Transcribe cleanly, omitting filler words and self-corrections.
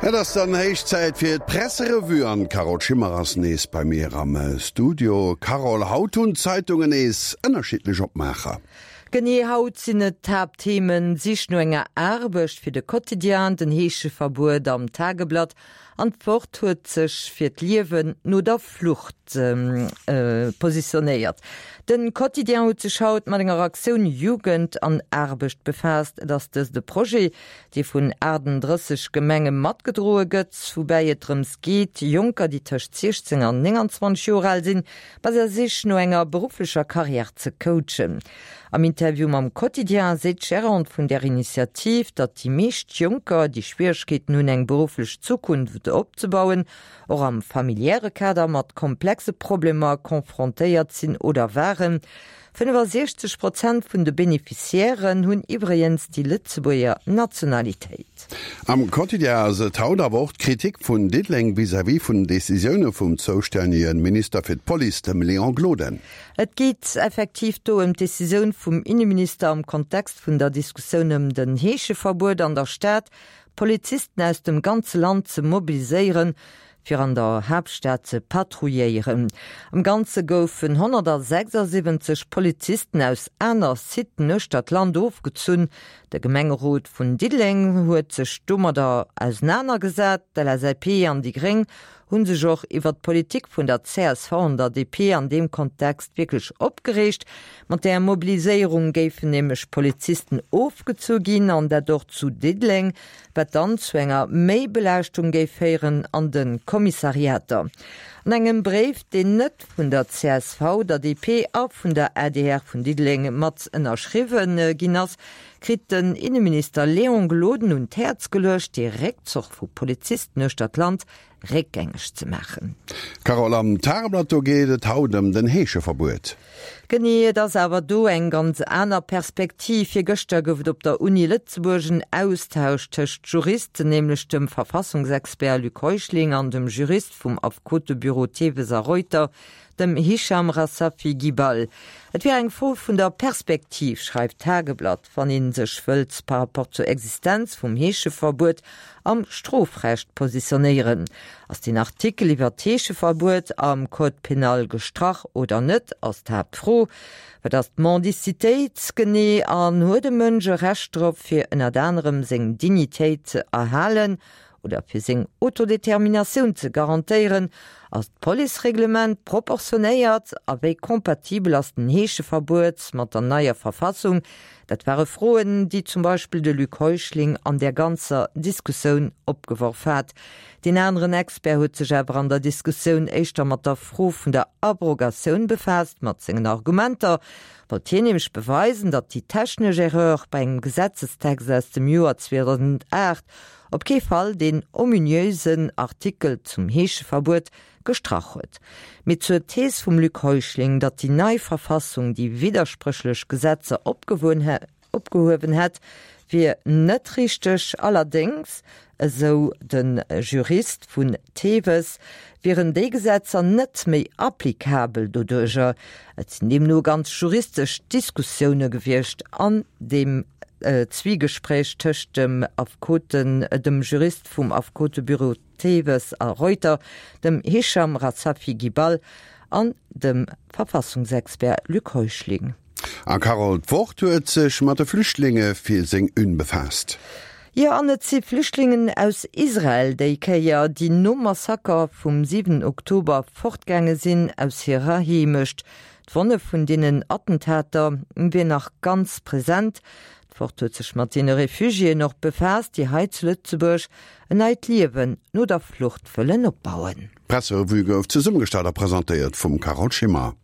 Et ass dann héich Zäit fir d'Presserevue an d'Carole Schimmer ass nees bei mir am Studio. Carole, haut hunn d'Zeitungen nees ënnerschiddlech Opmaacher. Genee, haut sinn et d'Haaptthemen, Sich no enger Aarbecht fir de Quotidien, den Heescheverbuet am Tageblatt an d'Wort huet sech fir d'Liewen no der Flucht positionéiert. De Quotidien huet sech haut mat enger Aktioun Jugend an Aarbecht befaasst. Et ass dëst e Projet, dee vun 38 Gemenge matgedroe gëtt, woubäi et drëms geet, Jonker, déi tëscht 16 an 29 Joer al sinn, bei der Sich no enger berufflecher Karriär ze coachen. Am Interview mam Quotidien seet d'Gérante vun där Initiativ, datt déi meescht Jonker, déi Schwieregkeeten hunn, eng berufflech Zukunft opzebauen, och am familiäre Kader mat komplexe Problemer confrontéiert sinn oder waren. 65 Prozent vun de Beneficiairen hunn iwwregens déi Lëtzebuerger Nationalitéit. Am Quotidien ass et haut awer och d'Kritik vun Diddeleng vis-à-vis vun den Decisioune vum zoustännege Minister fir d'Police, dem Léon Gloden. Et geet effektiv do ëm d'Decisioun vum Inneminister am Kontext vun der Diskussioun ëm den Heescheverbuet an der Stad, Polizisten aus dem ganze Land ze mobiliséieren, fir an der Haaptstad ze patrouilléieren. Am Ganze goufen 176 Polizisten aus aner Siten uechter d'Land ofgezunn. De Gemengerot vun Diddeleng huet sech domadder ausenanergesat. D'LSAP an déi Gréng hu sech och iwwer d'Politik vun der csv an der DP an deem Kontext wierklech opgereegt. Mat där Mobiliséierung géifen nämlech Polizisten ofgezu ginn, an dat och zu Diddeleng, wat dann zu enger Méibelaaschtung géif féieren an de Kommissariater. An engem Bréif, deen net vun der csv, der DP a vun der adr vun Diddeleng mat ënnerschriwwen ginn ass, kritt den Inneminister Léon Gloden un d'Häerz geluecht, dee Réckzoch vu Polizisten uechter d'Land réckgängeg ze maachen. Carole, am Tageblatt do geet et haut ëm den Heescheverbuet. Genee, et ass awer do eng ganz aner Perspektiv. Virgëschter gouf et op der Uni Lëtzebuerg en Austausch tëscht Juristen, nämlech dem Verfassungsexpert Luc Heuschling an dem Jurist vum Affekotebüro Theves a Reuter, dem Hicham Rassafi Guibal. Et wier eng Fro vun der Perspektiv, schreift d'Tageblatt, wann ee sech wëllt par rapport zur Existenz vum Heescheverbuet am Strofrecht positionéieren. Ass den Artikel iwwer d'Heescheverbuet am Code pénal gestrach oder net, ass d'Haaptfro. Wat ass d'Mendicitéit genee an huet e Mënsch e Recht drop, fir ënnert anerem seng Dignitéit ze erhalen oder fir seng Autodeterminatioun ze garantéieren? Ass d'Policereglement proportionéiert a wéi compatibel ass den Heescheverbuet mat der neier Verfassung? Dat ware Froen, déi zum Beispill de Luc Heuschling an där ganzer Diskussioun opgeworf hat. Deen aneren Expert huet sech awer an der Diskussioun éischter mat der Fro vun der Abrogatioun befaasst. Mat sengen Argumenter wollt hien nämlech beweisen, datt déi technesch Erreur bei engem Gesetzestext aus dem Joer 2008 op kee Fall deen ominösen Artikel zum Heescheverbuet gestrach huet. Mee zur Thees vum Luc Heuschling, datt déi nei Verfassung déi widderspréchlech Gesetzer opgehuewen hätt, wier net richteg. Allerdéngs, esou de Jurist vun Theves, wieren déi Gesetzer net méi applicabel doduercher. Et sinn deemno ganz juristesch Diskussioune gewiescht an deem Zwiegespréich tëscht dem Affekoten, dem Jurist vum Affekotebüro Theves a Reuter, dem Hicham Rassafi Guibal an dem Verfassungsexpert Luc Heuschling. A Carole, d'Wort huet sech mat de Flüchtlinge fir seng Une befaasst. Jo, an et si Flüchtlingen aus Israel déi Kéier, déi nom Massaker vum 7 Oktober fortgaange sinn aus hirer Heemecht. D'Wonne vun deenen Attentater wier nach ganz present. D'Wort huet sech mat deene Refugiéen och befaasst, déi hei zu Lëtzebuerg en neit Liewen no der Flucht wëllen opbauen. D'Presserevue gouf zesummegestallt a presentéiert vum Carole Schimmer.